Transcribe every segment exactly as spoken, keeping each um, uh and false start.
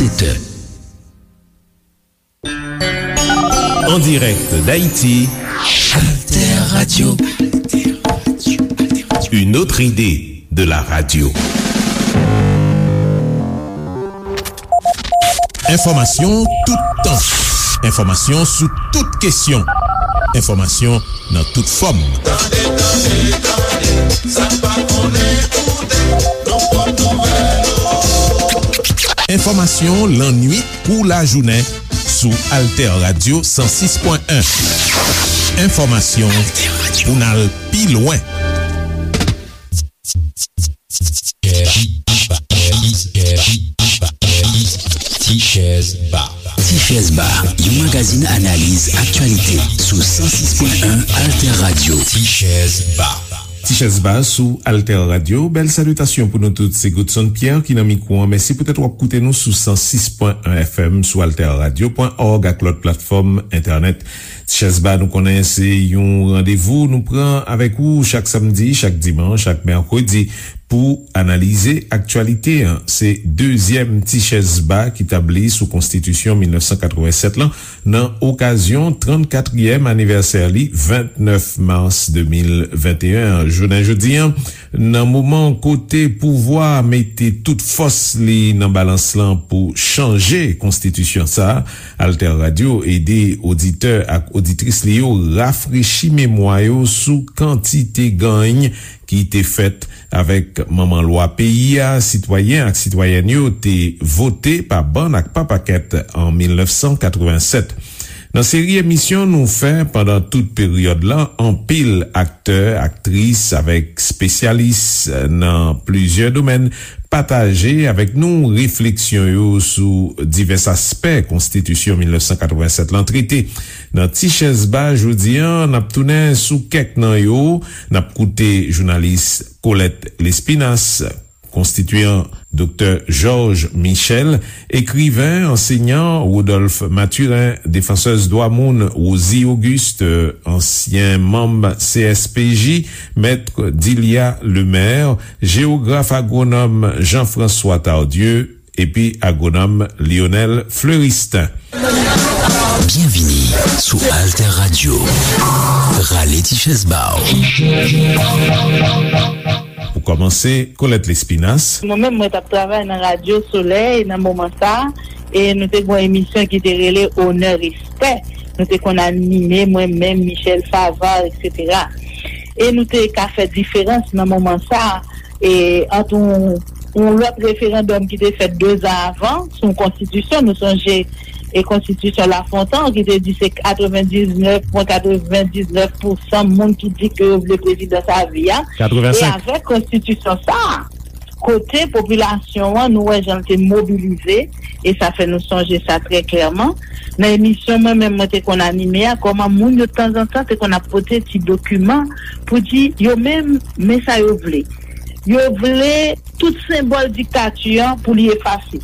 sept heures. En direct d'Haïti, Alter Radio. Une autre idée de la radio. Enfòmasyon toutan. Enfòmasyon sou tout kesyon. Enfòmasyon nan tout fòm. Tande, tande, tande, sa pa konnen koute, nou pot nouvèl yo. Enfòmasyon lannwit kou lajounen sou Alter Radio san sis pwen en. Enfòmasyon pou n al pi lwen. Tichèz Ba. Tichèz Ba, yon magazin analiz aktyalite sou san sis pwen en Alter Radio. Tichèz Ba. Tichèz Ba sou Alter Radio. Bèl salitasyon pou nou tout. Se Godson Pierre ki nan mikwo an. Mèsi poutèt w ap koute nou sou san sis pwen en F M, sou alter radio pwen org ak lòt platfòm entènèt. Tichèz Ba, nou konnen se yon randevou nou pran avèk ou chak samdi, chak dimanch, chak mèkredi pou analize aktyalite an. Se dezyèm Tichèz Ba ki tabli sou Konstitisyon mil nèf san katrevennsèt lan nan okazyon trannkatriyèm anivèsè li, vennèf mas de mil venteyen an. Jounen jodi an, nan moman kote pouvwa a mete tout fòs li nan balans lan pou chanje konstitisyon sa a, Alter Radio ede oditè ak oditris li yo rafrechi memwa yo sou kantite gany ki te fèt avèk manman lwa peyi a, sitwayen ak sitwayèn yo te vote pa bann ak pa pakèt an mil nèf san katrevennsèt. Nan seri emisyon nou fè pandan tout peryòd lan, anpil aktè, aktris avèk espesyalis nan plizyè domèn pataje avèk nou refleksyon yo sou divès aspè Konstitisyon mil nèf san katrevennsèt lan trete. Nan Tichèz Ba jodi an, n ap tounen sou kèk nan yo. N ap koute jounalis Colette Lespinasse, konstitiyan Doktè Georges Michel, ekriven, ansenyan Rodolphe Mathurin, defansèz dwa moun Rosie Auguste, ansyen manm C S P J, mèt Dilia Lemaire, jewograf agwonòm Jean-François Tardieu, epi agwonòm Lionel Fleuristin. Byenvini sou Alter Radio. Rale ti chèz ba w. Pou kòmanse, Colette Lespinasse. Mwen menm, mwen t ap travay nan Radyo Solèy nan moman sa a, e nou te gen yon emisyon ki te rele Onè Respè. Nou te konn anime, mwen menm, Michel Favart, etsetera. E nou te ka fè diferans nan moman sa a, e ant yon, yon lòt referandòm ki te fèt dezan avan sou yon konstitisyon. Nou sonje, e konstitisyon Lafontan ki te di se katrevendiznèf pwen katrevendiznèf pousan moun ki di ke yo vle prezidan sa a vi a. E avèk konstitisyon sa a, kote popilasyon an, nou wè jan l te mobilize, e sa fè nou sonje sa trè klèman. Nan emisyon mwen menm mwen te konn anime a, kòman moun yo tanzantan te konn ap pote ti dokiman pou di yo menm, men sa yo vle. Yo vle tout senbòl diktati an pou li efase.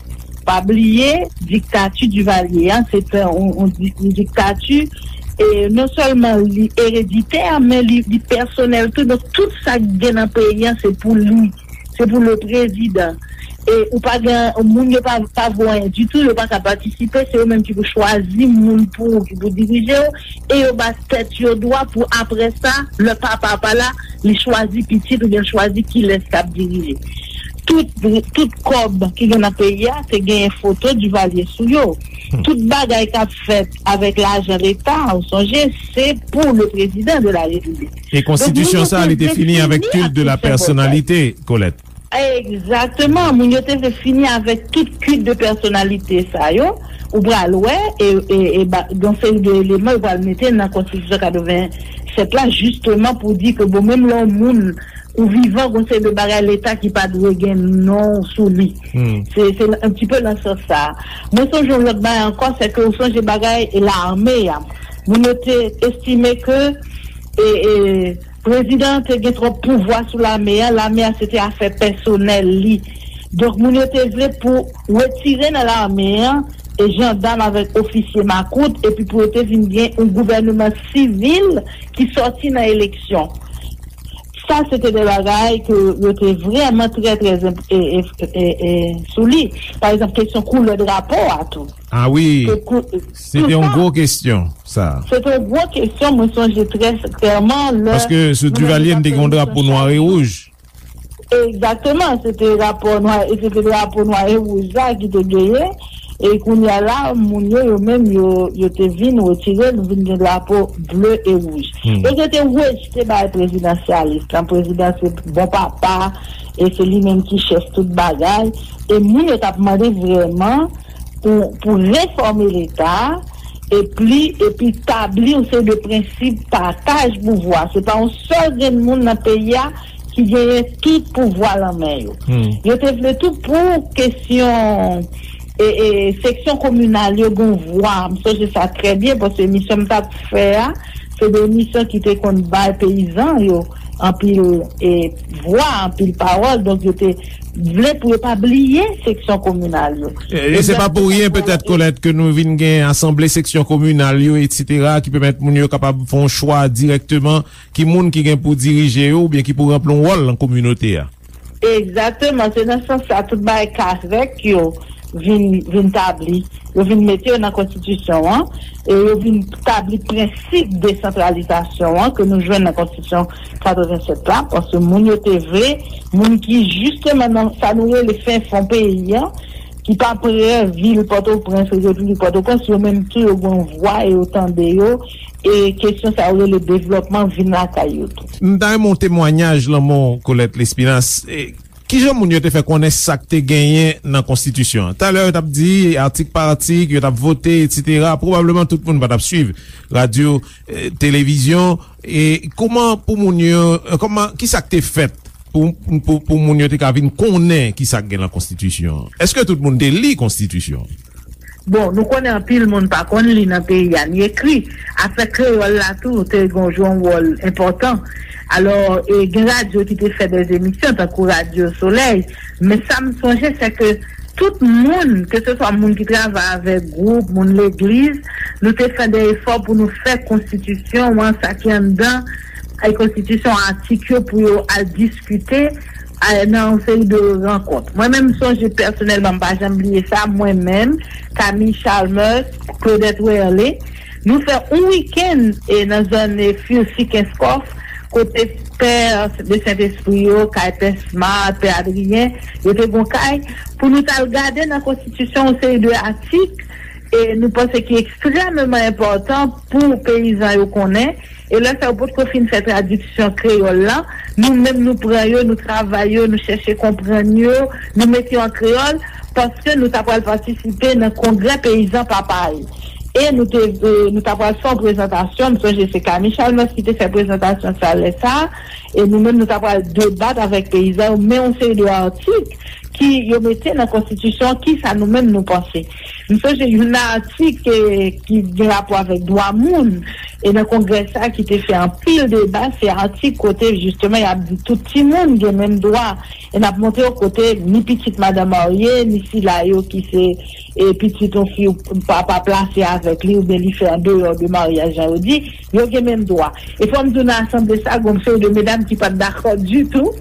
Pa bliye, diktati Divalye an, se te yon, yon di-, yon diktati, e non sèlman li ereditè, men li, li pèsonèl tou. Donk, tout sa k gen nan peyi an, se pou li. Se pou le prezidan. E ou pa gen, moun yo pa, pa vo anyen ditou, yo pa ka patisipe, se yo menm ki pou chwazi moun pou ou, ki pou dirije w, e yo ba tèt yo dwa pou apre sa, lè papa pa la, li chwazi pitit oubyen l chwazi kilès k ap dirije. Tout, tout kòb ki gen nan peyi a, te genyen foto Divalye sou yo. Hmm. Tout bagay k ap fèt avèk lajan leta, ou sonje, se pou le président de la République. E konstitisyon sa, li te fini avèk culte de la personnalité, Colette. Egzakteman, moun yo te vle fini avèk tout culte de personnalité sa yo. Ou pral wè, e, e, e ba, gen seri de eleman yo pral mete nan konstitisyon katrevennsèt la, jisteman pou di ke, bon, menm lè yon moun ou vivan, gen seri de bagay leta ki pa dwe gen non w sou li. Hmm. Se, se un petit peu nan sans sa. Mwen sonje yon lòt bagay ankò, se ke ou sonje bagay e lame a. Moun yo te estime ke, e, e, prezidan an te gen twòp pouvwa sou lame a, lame a se te afè pèsonèl li. Donk, moun yo te vle pou retire nan lame an e jandam avèk ofisye makout, epi pou yo te vin gen yon gouvèneman sivil ki sòti nan eleksyon. Sa, se te de bagay ke yo te vrèman trè, trè enp- e, e, e, e, sou li. Pa egzanp, kesyon koulè drapo a tou. Ah wi, se te yon gwo kesyon, sa. Se te yon gwo kesyon, mwen sonje trè klèman lè. Paske sou Duvalier, n te gen yon drapo nwa e wouj. Egzakteman, se te rapò nwa, e se te drapo nwa e wouj la ki te genyen. E kounye a la, moun yo, yo menm, yo, yo te vin retire, nou vin gen drapo ble e wouj. Donk, yo te rejte bagay prezidansyalis lan. Prezidan se bon papa, e se li menm ki chèf tout bagay. E moun yo t ap mande vrèman pou, pou refòme Leta, epi, epi tabli yon seri de prensip pataj pouvwa. Se pa yon sèl grenn moun nan peyi a ki genyen tout pouvwa lan men yo. Yo te vle tou pou kesyon e, e, seksyon kominal yo gen vwa. M sonje sa trè byen, paske emisyon m t ap fè a, se de emisyon ki te konn bay peyizan yo anpil, e, vwa, anpil pawòl. Donk, yo te vle pou yo pa bliye seksyon kominal yo. E, e se pa pou ryen, petèt, Colette, ke nou vin gen asanble seksyon kominal yo, etsetera, ki pèmèt moun yo kapab fè yon chwa dirèkteman ki moun ki gen pou dirije yo oubyen ki pou ranpli yon wòl nan kominote a. Egzakteman, se nan sans sa tout bagay kazèk yo vin, vin tabli, yo vin mete yo nan konstitisyon an, e yo vin tabli prensip desantralizasyon an ke nou jwenn nan konstitisyon katrevennsèt la, paske moun yo te vle, moun ki jisteman nan sa nou rele fen fon peyi an, ki pa prè vil Pòtoprens, Repiblik Pòtoprens, yo menm tou yo gen yon vwa e yo tande yo, e kesyon sa yo rele devlòpman vin lakay yo tou. M ta renmen yon temwayaj lan men w, Colette Lespinasse. E, kijan moun yo te fè konnen sa k te genyen nan konstitisyon an? Talè yo t ap di atik pa atik, yo t ap vote, etsetera. Pwobableman tout moun pa t ap swiv radyo, e, televizyon. E kòman pou moun yo, e, kòman, ki sa k te fèt pou, pou, pou moun yo te ka vin konnen ki sa k gen lan konstitisyon an? Èske tout moun te li konstitisyon an? Bon, nou konnen anpil moun pa konn li nan peyi a, ni ekri. Afè kreyòl la tou te gen yon wòl enpòtan. Alò, e, gen radyo ki te fè de emisyon, tankou Radyo Solèy. Men sa m sonje, se ke tout moun, keseswa moun ki travay avèk gwoup, moun legliz, nou te fè de efò pou nou fè konstitisyon an, sa ki anndan, e, konstitisyon, atik yo pou yo al diskite, e, nan yon seri de rankont. Mwen menm, m sonje pèsonèlman, m pa janm bliye sa, mwen menm, Camille Chalmers, Claudette Werlé, nou fè yon wikenn, e, nan zòn, e, Furcy Kenskòf, kote pè de Sentespri yo, kay pè Smart, pè Adrien, yo te gon kay, pou nou t al gade nan konstitisyon yon seri de atik, e nou panse ki ekstrèmeman enpòtan pou peyizan yo konnen. E lè sa yo potko fin fè tradiksyon kreyòl la, nou menm nou pran yo, nou travay yo, nou chèche konprann yo, nou mete yo an kreyòl, paske nou ta pral patisipe nan kongrè peyizan Papay. E nou te, e, nou ta pral fè yon prezantasyon, m sonje se Camille Chalmers ki te fè prezantasyon sa lè sa, e nou menm nou ta pral debat avèk peyizan yo, men yon seri de atik ki yo mete nan konstitisyon, kisa nou menm nou panse. M sonje youn nan atik, e, ki gen rapò avèk dwa moun, e nan kongrè sa ki te fè anpil deba, se atik kote jisteman y ap di tout timoun gen menm dwa, e n ap montre yo kote ni pitit madan marye, ni sila yo ki se, e, pitit yon fi papa plase avèk li, oubyen li fè andeyò de maryaj, jan yo di, yo gen menm dwa. E fò m di w nan asanble sa, gon seri de medam ki pa t dakò ditou,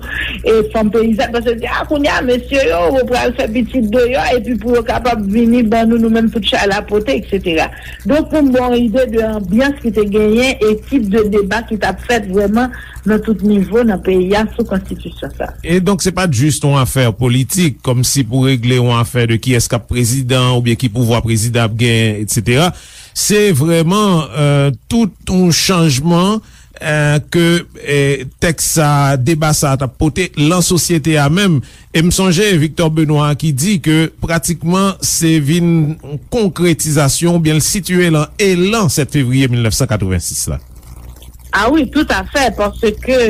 e fanm peyizàn, paske yo di, a, kounye a, mesye yo, yo pral fè pitit deyò, epi pou yo kapab vini ban nou, nou menm tout chay la pote, etsetera. Donk, pou m ba w yon ide de anbyans ki te genyen e tip de deba ki t ap fèt vrèman nan tout nivo nan peyi a sou konstitisyon sa. E donk, se pa t jis yon afè politik, kòmsi pou regle yon afè de kiyès k ap prezidan oubyen ki pouvwa prezidan ap genyen, etsetera. Se vrèman, e, tout yon chanjman, e, ke, e, tèks sa, deba sa t ap pote lan sosyete a menm. E m sonje Victor Benoît ki di ke pratikman se vin konkretizasyon oubyen l sitiye lan elan sèt fevriye mil nèf san katrevensis la. A wi, toutafè, paske,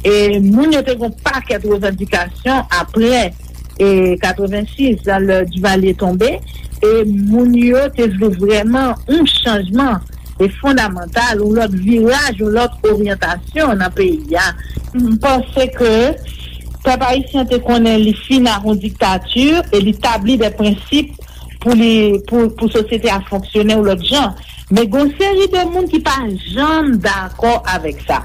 e, moun yo te gen yon pakèt revandikasyon apre, e, katrevensis, lè Duvalier tonbe, e moun yo te vle vrèman yon chanjman, e, fondamantal, yon lòt viraj, yon lòt oryantasyon nan peyi a. M panse ke pèp ayisyen te konnen li fin ak yon diktati e li tabli de prensip pou li, pou, pou sosyete a fonksyone yon lòt jan. Men gen yon seri de moun ki pa janm dakò avèk sa.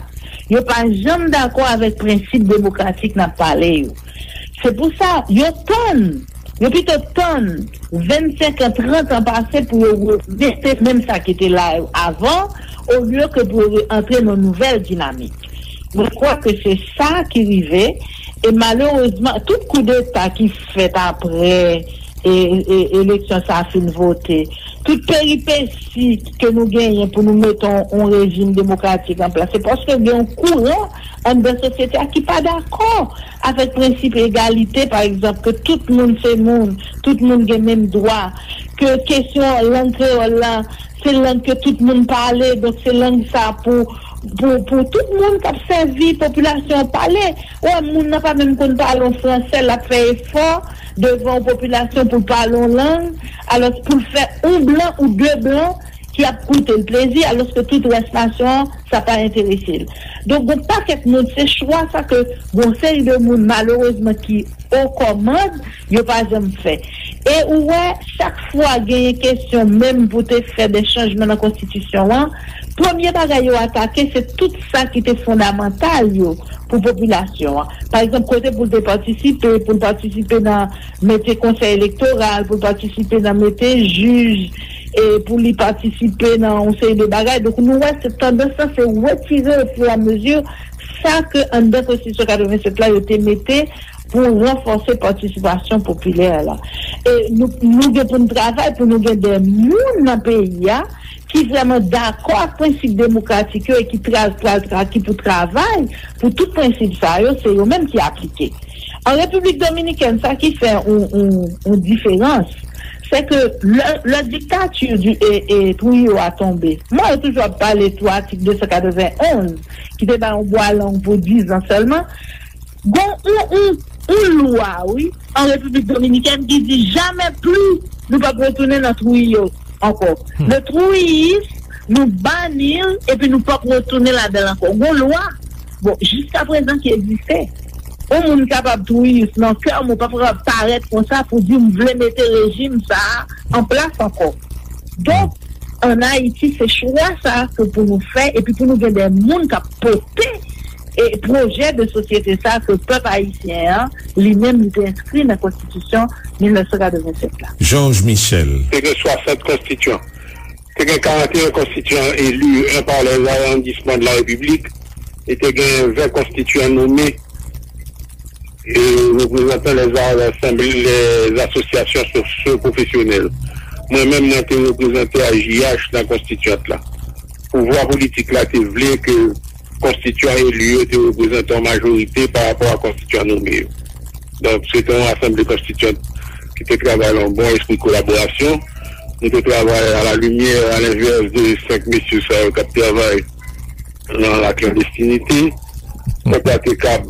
Yo pa janm dakò avèk prensip demokratik n ap pale yo. Se pou sa, yo tann, yo pito tann vennsenk an, trant an pase pou yo remete menm sa ki te la avan, olye ke pou yo antre nan nouvèl dinamik. Mwen kwè ke se sa ki rive, e malerezman, tout koudeta ki fèt apre e, e, eleksyon sa a fin vote, tout peripesi ke nou genyen pou nou mete yon, yon rejim demokratik an plas, se paske gen yon kouran anndan sosyete a ki pa dakò avèk prensip egalite, pa egzanp, ke tout moun se moun, tout moun gen menm dwa, ke kesyon lang kreyòl la, se lang ke tout moun pale, donk se lang sa pou, pou, pou tout moun k ap sèvi popilasyon an pale. Ou wè, moun nan pa menm konn pale yon fransè, l ap fè efò devan yon popilasyon pou l pale yon lang, alò pou l fè yon blan ou de blan ki ap koute l plezi, alòske tout rès nasyon an, sa pa enterese l. Donk, gon pakèt moun, se chwa sa ke gon seri de moun, malerezman, ki o kòmand, yo pa janm fè. E ou wè, chak fwa genyen kesyon menm pou te fè de chanjman nan konstitisyon an, premye bagay yo atake, se tout sa ki te fondamantal yo pou popilasyon an. Pa egzanp, kote pou l te patisipe, pou l patisipe nan mete konsèy elektoral, pou l patisipe nan mete jij, e pou li patisipe nan yon seri de bagay. Donk, nou wè se tandans lan, se retire ofiramezi sa ke anndan konstitisyon katrevennsèt la, yo te mete pou ranfòse patisipasyon popilè la. E nou, nou gen pou n travay pou nou gen de moun nan peyi a ki vrèman dakò ak prensip demokratik yo e ki tra, pral tra, ki pou travay pou tout prensip sa yo, se yo menm ki aplike. An Repiblik Dominikèn, sa ki fè yon, yon, yon diferans, se ke lè, lè diktati di, e, e, Trujillo a tonbe, mwen yo toujou ap pale sou atik de san katrevenn onz, ki te bay yon bwa lang pou diz an sèlman, gon yon, yon, yon lwa, wi, an Repiblik Dominikèn ki di jamè pli nou p ap retounen nan Trujillo ankò. Le Trujillisme, nou bani l, epi nou p ap retounen ladan l ankò. Gon lwa, bon, jiskaprezan ki egziste. Yon moun kapab Trujillis nan kè, men w pa kapab parèt konsa pou di m vle mete rejim sa a an plas ankò. Donk, ann Ayiti, se chwa sa a ke pou nou fè, epi pou nou gen de moun k ap pote e pwojè de sosyete sa a ke pèp ayisyen an, li menm, li te enskri nan konstitisyon mil nèf san katrevennsèt la. Georges Michel. Te gen swasant konstityan. Te gen karannteyen konstityan eli, un par les arrondissements de la République, e te gen ven konstityan nome e reprezantan les assemblées, les associations socio-professionnelles. Mwen menm, mwen te reprezante A J H nan konstityant la. Pouvwa politik la te vle ke konstityan eli yo te reprezante yon majorite pa rapò a konstityan nome yo. Donk, se te yon asanble konstityant ki te travay nan yon bon espri kolaborasyon. Nou te travay a la limyè, a lenvès de senk mesye sa yo k ap travay nan laklandestinite. Pèp la te kab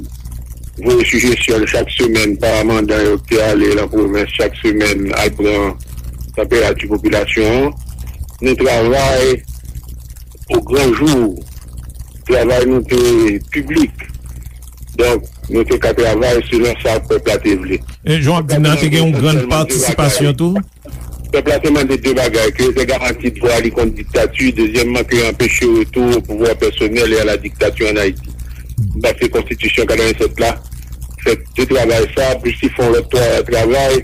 voye sijesyon l chak semèn pa mandan yo k te ale nan pwovens chak semèn al pran tanperati popilasyon an. Nou travay o gran jou. Travay nou te piblik. Donk, nou te ka travay selon sa pèp la te vle. E jan w ap di nan, te gen yon grann patisipasyon tou? Pèp la te mande de bagay, ke yo te garanti dwa li kont diktati, dezyèmman, ke yo anpeche retou o pouvwa pèsonèl e a la diktature ann Ayiti. Paske konstitisyon katrevennsèt la fè de travay sa, plis li fè yon lòt twa travay,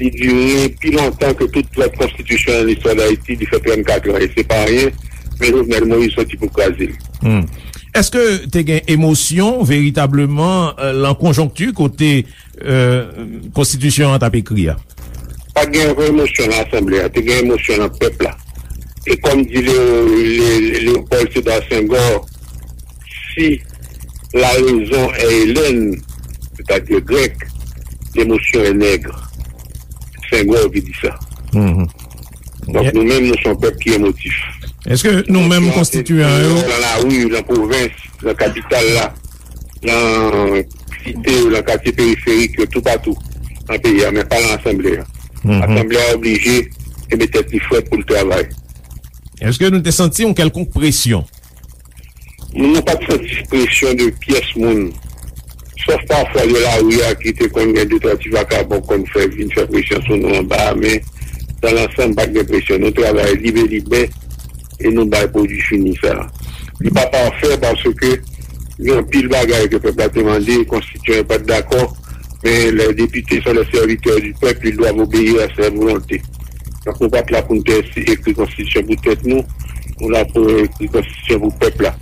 li dire pi lontan ke tout lòt konstitisyon nan listwa Dayiti, li fè trannkat an, e se pa anyen, men Jovenel Moïse soti pou kraze l. Hmm. Èske te gen emosyon veritableman, euh, lan konjonkti kote, euh, konstitisyon an t ap ekri a? Pa t gen emosyon nan asanble a, te gen emosyon nan pèp la. E kòm di Leo, Le, Léopold Sédar Senghor, si la raison est hellène, c'est-à-dire grecque, l'émotion est nègre. Senghor ki di sa. Mhm. Donk, nou menm, nou se yon pèp ki emotif. Èske nou menm konstitiyan yo? Nan lari, nan pwovens, nan kapital la, nan site yo, nan katye periferik yo, toupatou nan peyi a, men pa nan asanble a. Mhm. Asanble a oblije kenbe tèt li frèt pou l travay. Èske nou te santi yon kèlkonk presyon? Nou pa t santi presyon de pyès moun. Sòf pafwa de lari a ki te konn gen de twa ti vakabon konn fè vin fè presyon sou nou anba a, men dan lansanm pa t gen presyon. Nou travay lib e libè e nou bay pwodui fini sa a. Li pa pafè paske Gen anpil bagay ke pèp la te mande, konstitiyan yo pa t dakò, men les députés sont les serviteurs du peuple, ils doivent obéir à sa volonté. Donk, nou pa t la pou n te ekri konstitisyon pou tèt nou, nou la pou ekri konstitisyon pou pèp la.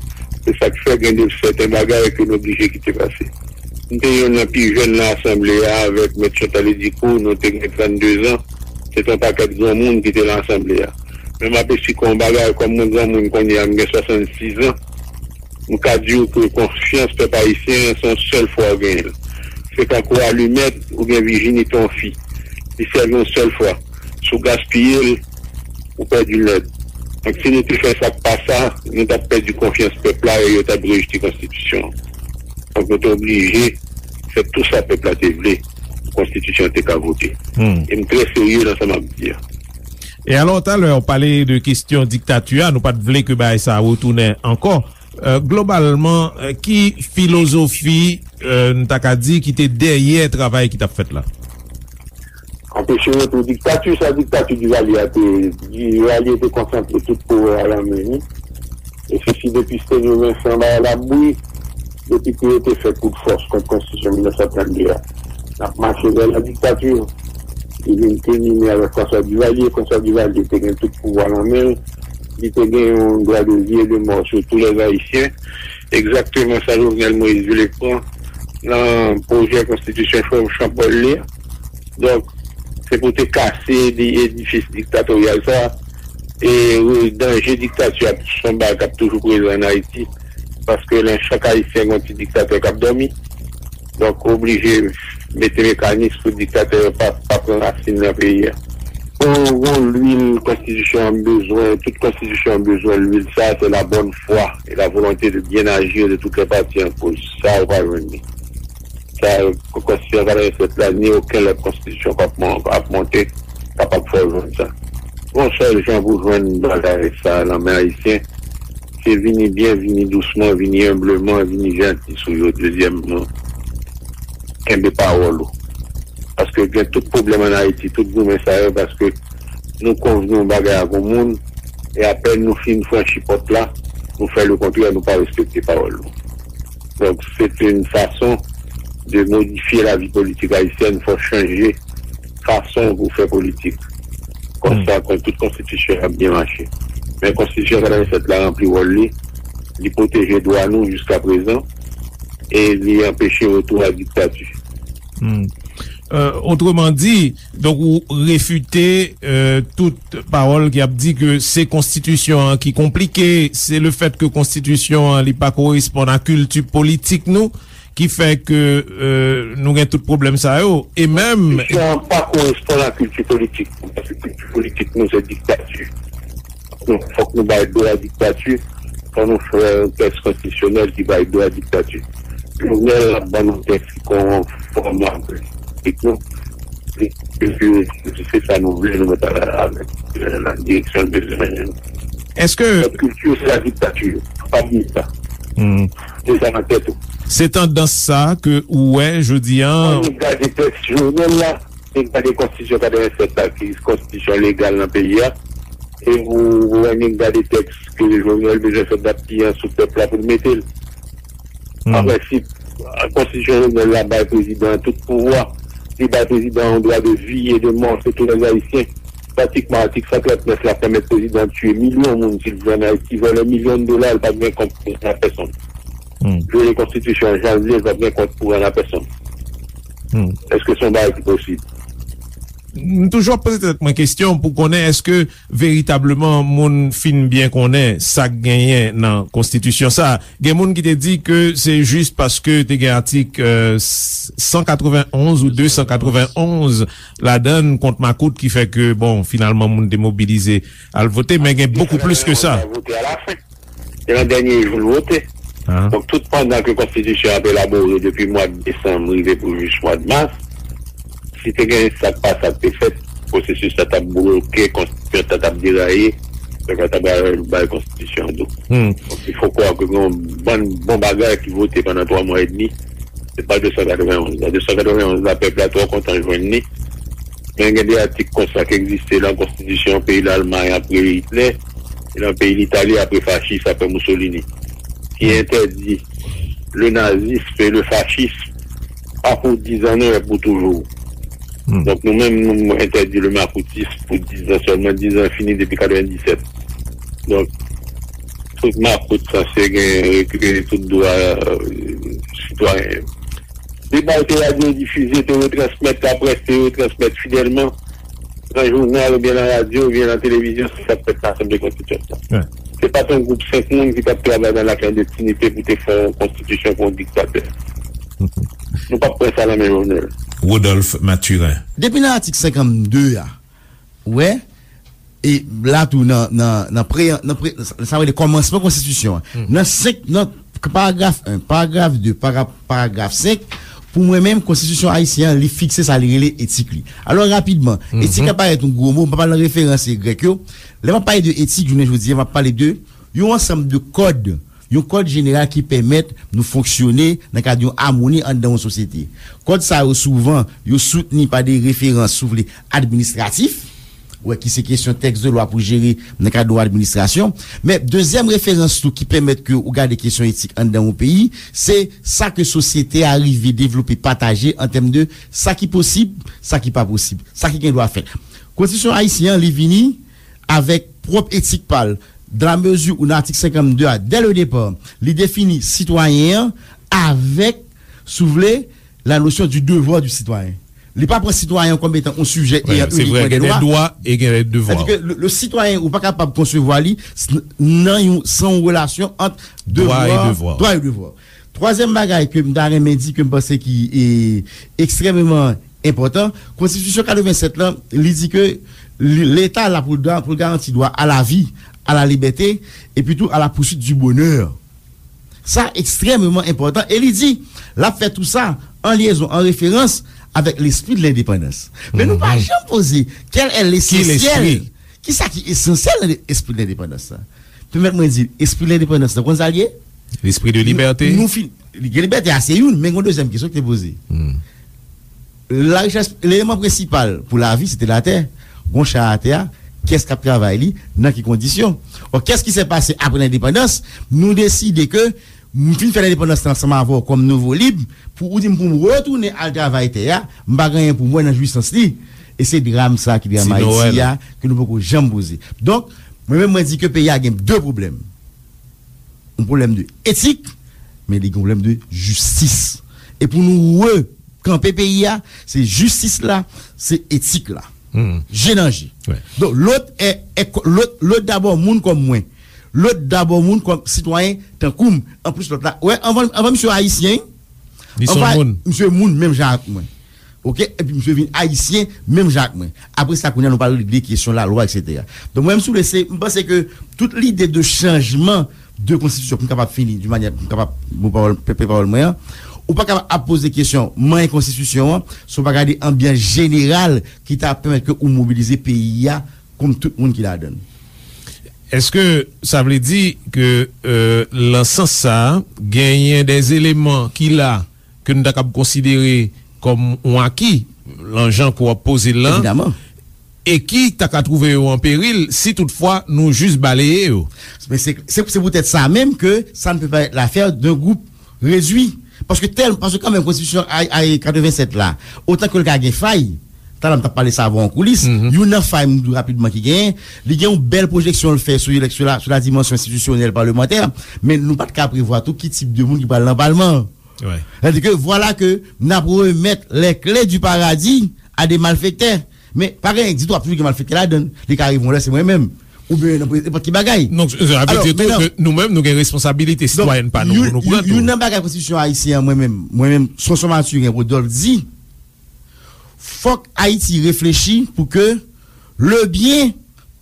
Se sa k fè gen de sèten bagay ke nou oblije kite pase. M te youn nan pi jèn nan asanble a avèk Mèt Chantal Edicourt, nou te gen trannde zan. Se te yon pakèt granmoun ki te nan asanble a. Men m apesyè yon bagay, kòm mwen granmoun kounye a, m gen swasannsis zan, m ka di w ke konfyans pèp ayisyen an, se yon sèl fwa w genyen l. Se tankou alimèt oubyen vijinite yon fi. Li sèvi yon sèl fwa. Si w gaspiye l, ou pèdi l nèt. Donk, si nou te fè sa k pa sa, nou t ap pèdi konfyans pèp la e yo t ap rejte konstitisyon an. Donk, nou te oblije fè tou sa pèp la te vle pou konstitisyon an te ka vote. E m trè serye nan sa m ap di a. E alò, talè, w pale de kesyon diktati a, nou pa t vle ke bagay sa a retounen ankò. Euh, globalman, euh, ki filozofi, euh, n ta ka di, ki te dèyè travay ki t ap fèt la? Anpeche retou diktati, sa diktati Divalye a te, Divalye te konsantre tout pouvwa a nan men li. E se si depi Stenyo Vensan bagay la bouyi, depi ke yo te fè kout fòs kont konstitisyon mil nèf san trannde a, n ap mache vè la diktati. Li vin kilmine avèk François Duvalier. François Duvalier te gen tout pouvwa nan men l. Li te gen yon dwa de vi e de mò sou tou lè Ayisyen. Egzakteman sa Jovenel Moïse vle pran nan pwojè konstitisyon Jean Paul li a. Donk, se pou te kase di-, edifis diktatoryal sa a. E, e danje diktati a, se yon bagay k ap toujou prezan ann Ayiti. Paske nan chak Ayisyen, gen yon ti diktatè k ap dòmi. Donk, oblije mete mekanis pou diktatè yo pa, pa pran rasin nan peyi a. Bon, bon, lwil konstitisyon an bezwen, tout konstitisyon an bezwen lwil sa, c'est la bonne foi et la volonté de bien agir de toutes les parties en cause. Sa, ou pa jwenn li. Sa, konstitisyon katrevennsèt la, ni okenn lòt konstitisyon k ap mon-, ap monte, kapab fè w jwenn sa. Yon sèl jan pou jwenn bagay sa nan men Ayisyen, se vini byen, vini dousman, vini enbleman, vini janti sou yo. Dezyèmman, kenbe pawòl ou. Paske gen tout pwoblèm ann Ayiti, tout goumen sa yo, paske nou konvni yon bagay ak yon moun, e apèn nou fin franchi pòt la, nou fè lekontrè, nou pa respekte pawòl nou. Donk, se te yon fason de modifye lavi politik ayisyèn, fò chanje fason pou fè politik. Konsa, kon tout konstitisyon ap byen mache. Men konstitisyon katrevennsèt la ranpli wòl li, li pwoteje dwa nou jiska prezan, e li anpeche retou a diktati. Hmm. Euh, autrement dit, donk ou refite, euh, tout pawòl ki ap di ke se konstitisyon an ki konplike, se le fèt ke konstitisyon an li pa koresponn a kilti politik nou, ki fè ke, euh, nou gen tout pwoblèm sa yo, e menm Konstitisyon an pa koresponn a kilti politik nou, paske kilti politik nou se diktati. Donk, fòk nou bay do a diktati, fòk nou fè yon tèks konstitisyonèl ki bay do a diktati. Jovenel ap ban nou tèks ki konfòm avèk nou. E, e, e, se sa nou vle, nou mèt al avèk, euh, la direksyon l bezwen mennen nou. Èske Lòt kilti, se la diktati. Pa bliye sa. Hmm. Mete sa nan tèt ou. Se tandans sa ke ou wè jodi an? Ann gade tèks Jovenel la, e gade konstitisyon katrevennsèt la, ki konstitisyon legal nan peyi a. E ou, ou annik gade tèks ke Jovenel bezwen fè dat pye an sou pèp la pou l mete l. Hmm. An prensip, konstitisyon Jovenel la bay prezidan an tout pouvwa. Li bay prezidan an yon dwa de vi e de mò sou tou lè Ayisyen. Pratikman, atik san trant nèf la pèmèt prezidan an tiye milyon moun si l vle ann Ayiti, vòlè milyon dola, l pa t gen kont pou rann a pèsonn. Hmm. Vyole konstitisyon an jan l vle, l pa t gen kont pou rann a pèsonn. Hmm. Èske se yon bagay ki posib? M toujou ap poze tèt mwen kesyon pou konnen èske veritableman moun fin byen konnen sa k genyen nan konstitisyon sa. Gen moun ki te di ke se jis paske te gen atik, euh, san katrevenn onz ou de san katrevenn onz ladan l kont makout ki fè ke, bon, finalman moun te mobilize al vote, men gen bokou plis ke sa. Vote a la fen. Se nan dènye jou l vote. Ah. Donk, tout pandan ke konstitisyon an ap elabore depi mwa desanm rive pou jis mwa mas, si te gen sa k pa sa k te fèt, pwosesis la t ap bloke, konstitisyon an t ap deraye, pèp la t ap bay, bay konstitisyon an do. Hmm. Donk, il faut croire ke gen yon bann bon bagay ki vote pandan twa mwa edmi, se pa de san katrevenn onz la. De san katrevenn onz la, pèp la twò kontan jwenn li. Men gen de atik konsa ki egziste nan konstitisyon peyi Lalmay apre Itlè, e nan peyi Litali apre fachis, apre Mussolini, ki entèdi le nazisme et le fascisme, pas pour dix ans, non, mais pour toujours. Donk nou menm, nou entèdi le makoutis pou dizan sèlman. Dizan fini depi katrevendiset. Donk, tout makout sanse gen rekipere tout dwa sitwayen yo. Deba yo te radyo difize, te retransmèt laprès, te retransmèt fidèlman nan jounal oubyen nan radyo oubyen nan televizyon, se sa k fèt nan Asanble Konstitiyant lan. Se pa t yon gwoup senk moun ki t ap travay nan laklandestinite pou te fè yon konstitisyon pou yon diktatè. Nou p ap pran sa nan men Jovenel. Rodolphe Mathurin. Depi nan atik senkannde a, ou wè, e la tou nan nan nan pre nan pre sa vle kòmansman konstitisyon an nan senk nan paragraf en, paragraf de, paragraf senk, pou mwen menm konstitisyon ayisyen an li fikse sa li rele etik li. Alò rapidman, etik la parèt yon gwo mo, m pa pale nan referans grèk yo. Lè m ap pale de etik jounen jodi a, m ap pale de yon ansanm de kòd, yon kòd jeneral ki pèmèt nou fonksyone nan kad yon amoni anndan yon sosyete. Kòd sa yo souvan yo soutni pa de referans, si w vle, administratif, wè, ki se kesyon tèks de lwa pou jere nan kad yon administrasyon. Men dezyèm referans tou ki pèmèt ke ou gade kesyon etik anndan yon peyi, se sa ke sosyete a rive devlope, pataje an tèm de sa ki posib, sa ki pa posib, sa ki gen dwa fèt. Konstitisyon ayisyen an li vini avèk pwòp etik pa l, dans la mesure où nan atik senkannde a, dès le départ, li defini sitwayen an avèk, si w vle, la notion du devoir du citoyen. Li pa pran sitwayen kòm etan yon sijè e an inikman de dwa. E gen dwa e gen devwa. Sètadi ke le sitwayen ou pa kapab konsevwa li nan yon san yon relasyon ant devwa, dwa e devwa. Twazyèm bagay ke m ta renmen di ke m panse ki ekstrèmeman enpòtan, konstitisyon katrevennsèt lan li di ke Leta la pou l garanti dwa a la vi, a la libète, epi tou a la pousuit du bonè. Sa ekstrèmeman enpòtan e li di l ap fè tou sa an lyezon, an referans avèk lespri de lendepandans. Men nou pa janm poze kèl è lesansyèl, kisa ki esansyèl nan espri de lendepandans la? Pèmèt mwen di l, espri de lendepandans la, konn sa l ye? Lespri de libète. Nou fin, libète a se youn, men gen yon dezyèm kesyon ki te poze. Larichès, eleman prensipal pou lavi se te latè. Gon chay atè a, kiyès k ap travay li, nan ki kondisyon? Or, qu'est-ce qui s'est passé après l'indépendance? Nou deside ke m fin fè lendepandans lan ansanm avè w kòm nouvo lib, pou ou di m pou m retounen al travay tè a, m pa gen anyen pou m wè nan jwisans li. E se dram sa a ki dram Ayiti a, ke nou poko janm poze. Donk, mwen menm mwen di ke peyi a gen de pwoblèm. Yon pwoblèm de etik, men li gen yon pwoblèm de jistis. E pou nou rekanpe peyi a, se jistis la, se etik la. Je nan je. Donk, lòt è, è, lòt, lòt dabò moun kòm mwen. Lòt dabò moun kòm sitwayen tankou m. Anplis lòt la, wè, anvan, anvan misye ayisyen, anvan misye moun menm jan ak mwen. Oke, epi misye vin ayisyen menm jan ak mwen. Apre sa kounye a nou pral regle kesyon lalwa, etsetera. Donk mwen menm si w vle se, m panse ke tout lide de chanjman de konstitisyon pou m kapab fini di manyè pou m kapab bon pawòl, pe pawòl mwen an, ou pa kapab ap poze kesyon manyen konstitisyon an si w pa gade anbyans jeneral ki ta pèmèt ke ou mobilize peyi a kòm tout moun ki ladan l. Èske sa vle di ke euh, lan sans sa a, genyen dè eleman ki la ke nou ta kab konsidere kòm yon aki lan jan ke w ap poze l lan, e ki ta ka twouve yo an peril si toutfwa nou jis baleye yo? Men se, se, se poutèt sa menm ke ça ne peut pas être l'affaire d'un groupe réduit. Paske tèl, paske kanmenm konstitisyon ay, ay katrevennsèt la, otan ke l ka gen fay, talè m t ap pale sa avè w an koulis, youn nan fay m di w rapidman ki genyen, li gen yon bèl pwojeksyon l fè sou eleksyon la, sou la dimansyon enstitisyonèl palmantè, men nou pa t ka prevwa tou ki tip de moun ki pral nan palman an. Sètadi ke vwala ke n ap remèt les clés du paradis à des malfaiteurs. Men pa gen ditou ap toujou gen malfektè ladan l. Li ka rive yon lè se mwen menm. Oubyen nan nenpòt ki bagay. Donk sa vle di tou ke nou menm nou gen responsabilite sitwayèn pa nou pou nou pran tou. Youn nan bagay konstitisyon ayisyen an mwen menm, mwen menm Sonson Mathurin Rodolphe di, fòk Ayiti reflechi pou ke le bien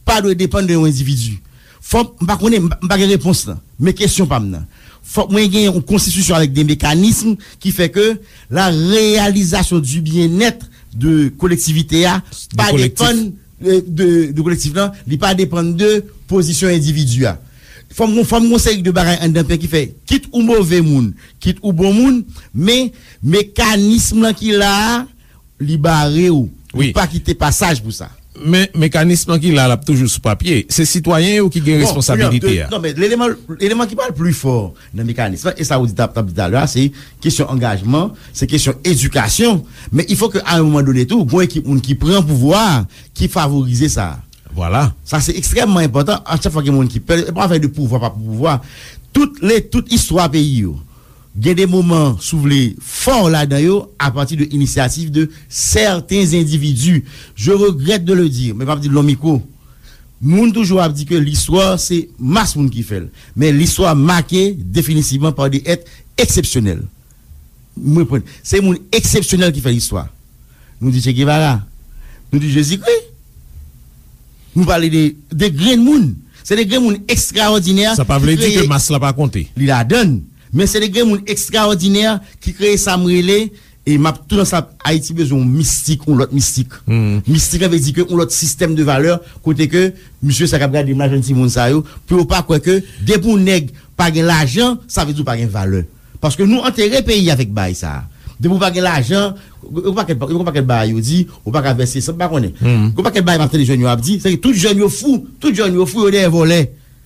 pa dwe depann de yon endividi. Fòk, m pa konnen, m pa gen repons lan. Men kesyon pa m nan. Fòk mwen gen yon konstitisyon avèk de mekanism ki fè ke la réalisation du bien-être de kolektivite a pa depann de, de kolektif lan, li pa depann de pozisyon endividi a. Fòk mwen, fòk mwen seri de bagay anndan peyi ki fè, kit ou move moun, kit ou bon moun, men mekanism lan ki la a, li bare w. Li pa kite pasaj pou sa. Men mekanis lan ki la, l ap toujou sou papye. Se sitwayen yo ki gen responsabilite a. Non, men eleman, eleman ki pral pli fò nan mekanis lan, e sa ou di t ap, t ap di talè a, se kesyon angajman, se kesyon edikasyon. Men il faut que à un moment donné tou, gon ekip moun ki pran pouvwa a, ki favorize sa. Vwala. Sa se ekstrèmman enpòtan. A chak fwa gen moun ki pè, e pa afè de pouvwa, pa pouvwa. Tout le, tout istwa peyi yo, gen de moman, si w vle, fò ladan yo, apati de inisyativ de sèten endividi. Je regrèt de le dire, men m ap di l nan mikwo. Moun toujou ap di ke listwa se mas moun ki fè l. Men listwa make definitivman pa de èt eksepsyonèl. Mwen pran, se moun eksepsyonèl ki fè listwa. Nou di Che Guevara, nou di Jezikri. Nou pale de, de grenn moun. Se de grenn moun ekstraòdinè. Sa pa vle di ke mas la pa konte. Li ladann. Men se de grenn moun ekstraòdinè ki kreye sa m rele, e m ap tou nan sa, Ayiti bezwen yon mistik, yon lòt mistik. Mistik la vle di ke yon lòt sistèm de valè, kote ke misye sa k ap gade m la, jèn timoun sa yo, pou yo pa kwè ke depi yon nèg pa gen lajan, sa vle di w pa gen valè. Paske nou antere peyi avèk bagay sa a. Depi w pa gen lajan, yon pakèt, yon pakèt bagay yo di, ou pa ka vèse san, m pa konnen. Yon pakèt bagay m ap tande jèn yo ap di, se ke tout jèn yo fou, tout jèn yo fou, yo dèyè vòlè.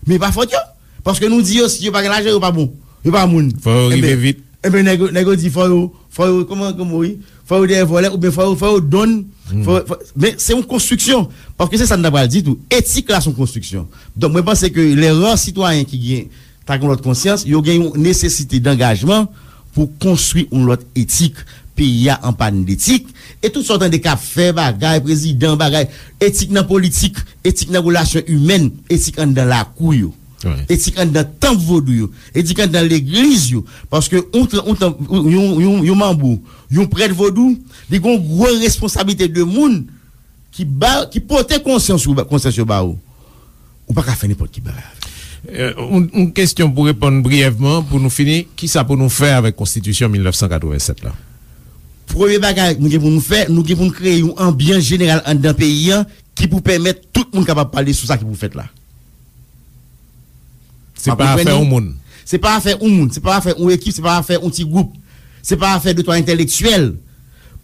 Men e pa fòt yo. Paske nou di yo, si yo pa gen lajan, yo pa bon. Yo pa moun. Fò yo rive vit. Enben, nèg yo, nèg yo di, fò yo, fò yo, kòman, kòman, wi? Fò yo dèyè vòlè, oubyen fò yo, fò yo donn. Fò, fò, men se yon konstriksyon. Paske se sa n ta pral di tou. Etik la se yon konstriksyon. Donk, mwen panse ke lè ra sitwayen ki gen ta gen yon lòt konsyans, yo gen yon nesesite dangajman pou konstwi yon lòt etik. Peyi a an pàn detik. E tout sa w tande k ap fè bagay, prezidan, bagay, etik nan politik, etik nan relasyon imèn, etik anndan lakou yo, etik anndan tanp vodou yo, etik anndan legliz yo. Paske yon, yon, yon, yon, yon manbo, yon prèt vodou, li gen yon gwo responsablite de moun ki ba, ki pote konsyans ou, konsyans yo ba ou, ou pa ka fè nenpòt ki bagay avè l. Yon, yon kesyon pou reponn briyèvman, pou nou fini, kisa pou nou fè avèk konstitisyon mil nèf san katrevennsèt la? Premye bagay nou gen pou nou fè, nou gen pou nou kreye yon anbyans jeneral anndan peyi a ki pou pèmèt tout moun kapab pale sou sa ki pou fèt la. Se pa afè yon moun. Se pa afè yon moun, se pa afè yon ekip, se pa afè yon ti gwoup. Se pa afè de twa entèlektyèl.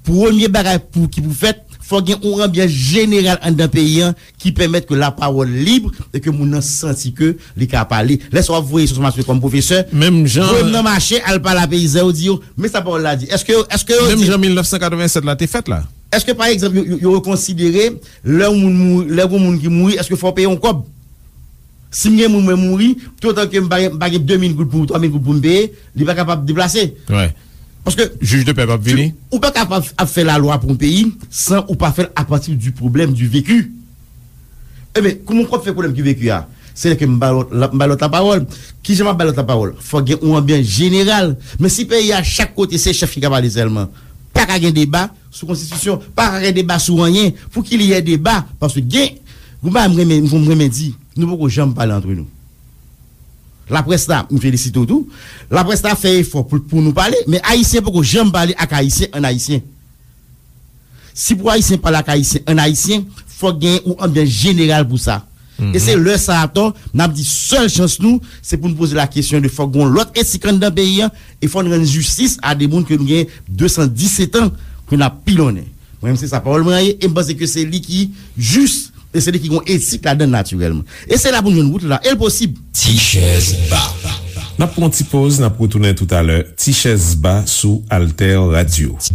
Premye bagay pou, ki pou fèt, fò gen yon anbyans jeneral anndan peyi a ki pèmèt ke lapawòl lib e ke moun nan santi ke li ka pale. Lè sa w ap voye sou mache kòm pwofesè, voye m nan mache, al pale a peyizan yo, di yo, men sa pawòl la di. Èske, èske yo di. Menm jan mil nèf san katrevennsèt la te fèt la. Èske, pa egzanp, yo, yo, yo konsidere lè yon moun mouri, lè yon moun ki mouri, èske fò w peye yon kòb? Si m gen moun mwen mouri, toutotan ke m pa gen, m pa gen de mil goud pou, twa mil goud pou m peye, li pa kapab deplase. Paske jij de pè p ap vini. Ou pa kapab ap fè lalwa pou yon peyi san ou pa fè l apati du pwoblèm, du vécu. Ebyen, kòman w ap fè pwoblèm ki vécu a? Se lè ke m ba lòt, m ba lòt lapawòl. Kijan m ap ba lòt lapawòl? Fò gen yon anbyans jeneral. Men si peyi a, chak kote se chèf ki ka pale sèlman, pa ka gen deba sou konstitisyon, pa ka gen deba sou anyen. Pou ki li yè deba? Paske gen, yon bagay m renmen, m renmen di, nou poko janm pale antre nou. Laprès la, m felisite w tou. Laprès la fè efò pou, pou nou pale, men Ayisyen poko janm pale ak Ayisyen an Ayisyen. Si pou Ayisyen pale ak Ayisyen an Ayisyen, fòk gen yon anbyans jeneral pou sa. E se lè sa atò, n ap di sèl chans nou, se pou n poze la kesyon de fòk gen yon lòt etik anndan peyi a, e fò n rann jistis a de moun ke nou gen de san disèt an ke n ap pilonnen. Mwen menm se sa pawòl mwen an ye, e m panse ke se li ki jis, e se li ki gen yon etik ladan l natirèlman. E se la pou n jwenn wout la, e l posib. Ti chèz ba. N ap pran yon ti poz, n ap retounen toutalè. Ti chèz ba sou Alter Radio. Ti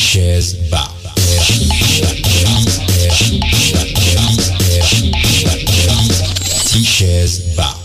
chèz ba. Ti chèz ba.